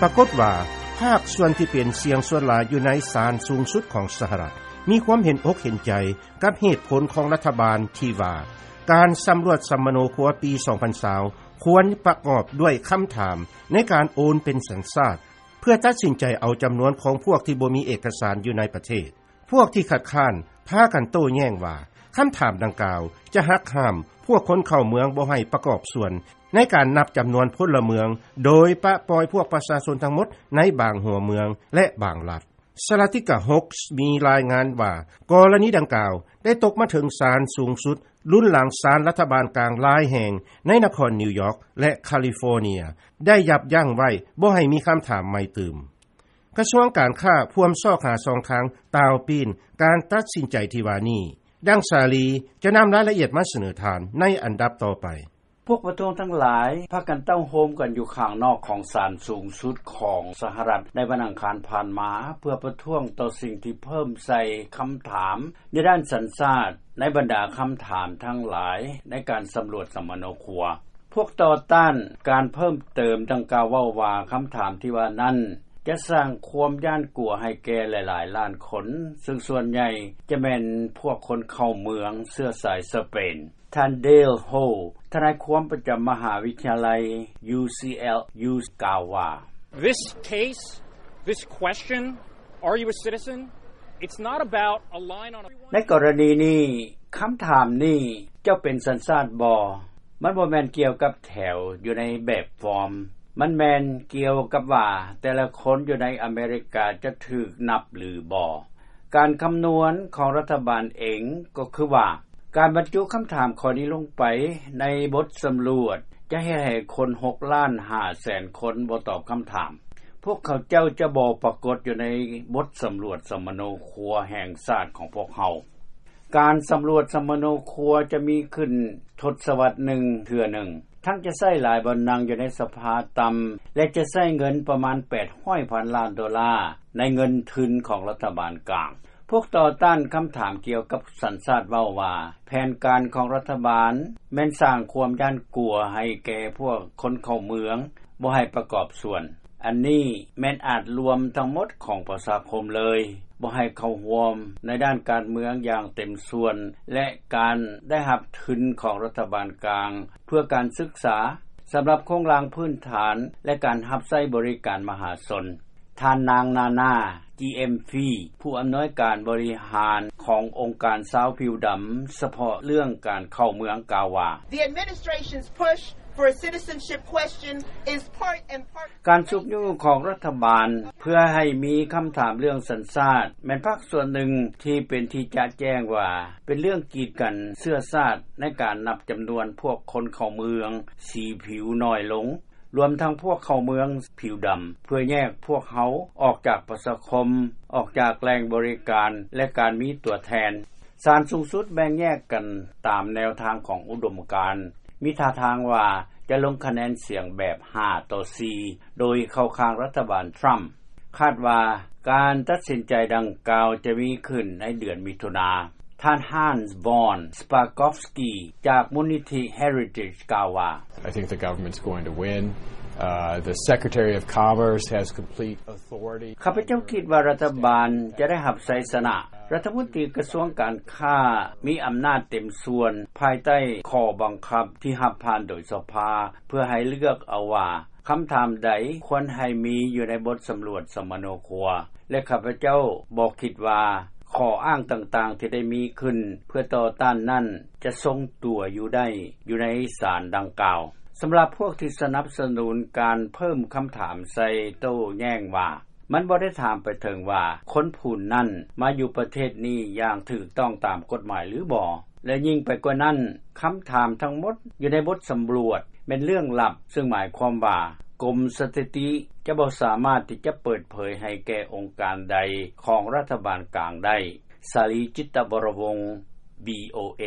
ປາກົດວ່າ ພາກສ່ວນທີ່ເປັນສຽງສ່ວນຫຼາຍຢູ່ໃນສານສູງສຸດຂອງສະຫະລັດ ມີຄວາມເຫັນອົກເຫັນໃຈກັບເຫດຜົນຂອງລັດຖະບານທີ່ວ່າ ການສຳຫຼວດສຳມະໂນຄົວປີສອງພັນຊາວ ຄວນປະກອບດ້ວຍຄຳຖາມໃນການໂອນເປັນສັນຊາດ ເພື່ອຕັດສິນໃຈເອົາຈຳນວນຂອງພວກທີ່ບໍ່ມີເອກະສານຢູ່ໃນປະເທດ. ພວກທີ່ຄັດຄ້ານພາກັນໂຕ້ແຍ້ງວ່າ ຄຳຖາມດັ່ງກ່າວຈະຫັກຫ້າມພວກຄົນເຂົ້າເມືອງບໍ່ໃຫ້ປະກອບສ່ວນໃນການນັບຈຳນວນພົນລະເມືອງ ໂດຍປະປ່ອຍພວກປະຊາຊົນທັງໝົດໃນບາງຫົວເມືອງ ແລະ ບາງລັດ. ສະຫະລັດ Saladika Hoax ມີລາຍງານວ່າ ກໍລະນີດັ່ງກ່າວໄດ້ຕົກມາເຖິງສານສູງສຸດ ລຸນຫຼັງສານລັດຖະບານກາງຫຼາຍແຫ່ງໃນນະຄອນນິວຢອກ ແລະ ຄາລິຟໍເນຍ ໄດ້ຢັບຢັ້ງໄວ້ບໍ່ໃຫ້ມີຄຳຖາມໃໝ່ຕື່ມ. ກະຊວງການຄ້າພວມຊອກຫາຊ່ອງທາງຕ່າວປີນການຕັດສິນໃຈທີ່ວ່ານີ້. ດັ່ງສາລີຈະນຳລາຍລະອຽດມາສະເໜີທ່ານໃນອັນດັບຕໍ່ໄປ. ພວກປະທ້ວງທັງຫຼາຍພາກັນເຕົ້າໂຮມກັນຢູ່ຂ້າງນອກຂອງສານສູງສຸດຂອງສະຫະລັດໃນວັນອັງຄານຜ່ານມາ ເພື່ອປະທ້ວງຕໍ່ສິ່ງທີ່ເພີ່ມໃສ່ຄຳຖາມໃນດ້ານສັນຊາດໃນບັນດາຄຳຖາມທັງຫຼາຍໃນການສຳຫຼວດສຳມະໂນຄົວ. ພວກຕໍ່ຕ້ານການເພີ່ມເຕີມດັ່ງກ່າວເວົ້າວ່າ ຄຳຖາມທີ່ວ່ານັ້ນຈະສ້າງຄວາມຢ້ານກົວໃຫ້ແກ່ຫຼາຍໆລ້ານຄົນ ເຊິ່ງສ່ວນໃຫຍ່ຈະແມ່ນພວກຄົນເຂົ້າເມືອງເຊື້ອສາຍສະເປນ. ທ່ານ Dale Ho ທະນາຍຄວາມປະຈຳມະຫາວິທະຍາໄລ UCLA ກ່າວວ່າ This case, this question, are you a citizen? It's not about a line on a ໃນກໍລະນີນີ້ ຄຳຖາມນີ້ ເຈົ້າເປັນສັນຊາດບໍ່? ມັນບໍ່ແມ່ນກ່ຽວກັບແຖວຢູ່ໃນແບບຟອມ. ມັນແມ່ນກ່ຽວກັບວ່າແຕ່ລະຄົນຢູ່ໃນອາເມລິກາຈະຖືກນັບຫຼືບໍ່. ການຄຳນວນຂອງລັດຖະບານເອງກໍຄືວ່າ ການບັນຈຸຄຳຖາມຂໍ້ນີ້ລົງໄປໃນບົດສຳຫຼວດ ຈະເຮັດໃຫ້ຄົນຫົກລ້ານຫ້າແສນຄົນບໍ່ຕອບຄຳຖາມ. ພວກເຂົາເຈົ້າຈະບໍ່ປາກົດຢູ່ໃນບົດສຳຫຼວດສຳມະໂນຄົວແຫ່ງຊາດຂອງພວກເຮົາ. ການສຳຫຼວດສຳມະໂນຄົວຈະມີຂຶ້ນທົດສະວັດໜຶ່ງເທື່ອໜຶ່ງ, ທັງຈະໃຊ້ຫຼາຍບ່ອນນັ່ງຢູ່ໃນສະພາຕ່ຳ ແລະ ຈະໃຊ້ເງິນປະມານແປດຮ້ອຍພັນລ້ານໂດລາ ໃນເງິນທຶນຂອງລັດຖະບານກາງ. ພວກຕໍ່ຕ້ານຄຳຖາມກ່ຽວກັບສັນຊາດເວົ້າວ່າ ແຜນການຂອງລັດຖະບານແມ່ນສ້າງຄວາມຢ້ານກົວໃຫ້ແກ່ພວກຄົນເຂົ້າເມືອງ ບໍ່ໃຫ້ປະກອບສ່ວນ. ອັນນີ້ແມ່ນອາດລວມທັງໝົດຂອງປະຊາຄົມເລີຍ, ບໍ່ໃຫ້ເຂົ້າຮ່ວມໃນດ້ານການເມືອງຢ່າງເຕັມສ່ວນ ແລະ ການໄດ້ຮັບທຶນຂອງລັດຖະບານກາງ ເພື່ອການສຶກສາ, ສຳລັບໂຄງລ່າງພື້ນຖານ ແລະ ການຮັບໃຊ້ບໍລິການມະຫາຊົນ. ທ່ານນາງ ນານາ ຈີເອັມຟີ ຜູ້ອຳນວຍການບໍລິຫານຂອງອົງການຊາວຜິວດຳສະເພາະເລື່ອງການເຂົ້າເມືອງ ກ່າວວ່າ The administration's push for a citizenship question is part and parcel ການຊຸກຍູ້ຂອງລັດຖະບານເພື່ອໃຫ້ມີຄຳຖາມເລື່ອງສັນຊາດ ແມ່ນພາກສ່ວນໜຶ່ງທີ່ເປັນທີ່ຈະແຈ້ງວ່າ ເປັນເລື່ອງກີດກັນເຊື້ອຊາດໃນການນັບຈຳນວນພວກຄົນເຂົ້າເມືອງສີຜິວໜ້ອຍລົງ ລວມທັງພວກເຂົ້າເມືອງຜິວດຳ ເພື່ອແຍກພວກເຮົາອອກຈາກປະຊາຄົມ, ອອກຈາກແຫຼ່ງບໍລິການ ແລະ ການມີຕົວແທນ. ສານສູງສຸດແບ່ງແຍກກັນຕາມແນວທາງຂອງອຸດົມການ, ມີທ່າທາງວ່າຈະລົງຄະແນນສຽງແບບຫ້າຕໍ່ສີ່ ໂດຍເຂົ້າຂ້າງລັດຖະບານທຣຳ. ຄາດວ່າການຕັດສິນໃຈດັ່ງກ່າວຈະມີຂຶ້ນໃນເດືອນມິຖຸນາ. ທ່ານ Hans von Spakovsky ຈາກມູນນິທິ Heritage ກ່າວວ່າ I think the government's going to win. Uh, the Secretary of Commerce has complete authority. ຂ້າພະເຈົ້າຄິດວ່າລັດຖະບານຈະໄດ້ຮັບໄຊຊະນະ. ລັດຖະມົນຕີກະຊວງການຄ້າມີອຳນາດເຕັມສ່ວນ ພາຍໃຕ້ຂໍ້ບັງຄັບທີ່ຮັບຜ່ານໂດຍສະພາ ເພື່ອໃຫ້ເລືອກເອົາວ່າ ຄຳຖາມໃດຄວນໃຫ້ມີຢູ່ໃນບົດສຳຫຼວດສຳມະໂນຄົວ ແລະ ຂ້າພະເຈົ້າບໍ່ຄິດວ່າຂໍ້ອ້າງຕ່າງໆທີ່ໄດ້ມີຂຶ້ນເພື່ອຕໍ່ຕ້ານນັ້ນ ຈະຊົງຕົວຢູ່ໄດ້ຢູ່ໃນສານດັ່ງກ່າວ. ສຳລັບພວກທີ່ສະໜັບສະໜູນການເພີ່ມຄຳຖາມໃສ່ໂຕ້ແຍ້ງວ່າ ມັນບໍ່ໄດ້ຖາມໄປເຖິງວ່າ ຄົນຜູ້ນັ້ນມາຢູ່ປະເທດນີ້ຢ່າງຖືກຕ້ອງຕາມກົດໝາຍຫຼືບໍ່ ແລະ ຍິ່ງໄປກວ່ານັ້ນ, ຄຳຖາມທັງໝົດຢູ່ໃນບົດສຳຫຼວດແມ່ນເລື່ອງລັບ, ເຊິ່ງໝາຍຄວາມວ່າ ກົມສະຖິຕິຈະບໍ່ສາມາດທີ່ຈະເປີດເຜີຍໃຫ້ແກ່ອົງການໃດຂອງລັດຖະບານກາງໄດ້. ສາລີ ຈິດຕະວໍລະວົງ ວີໂອເອ.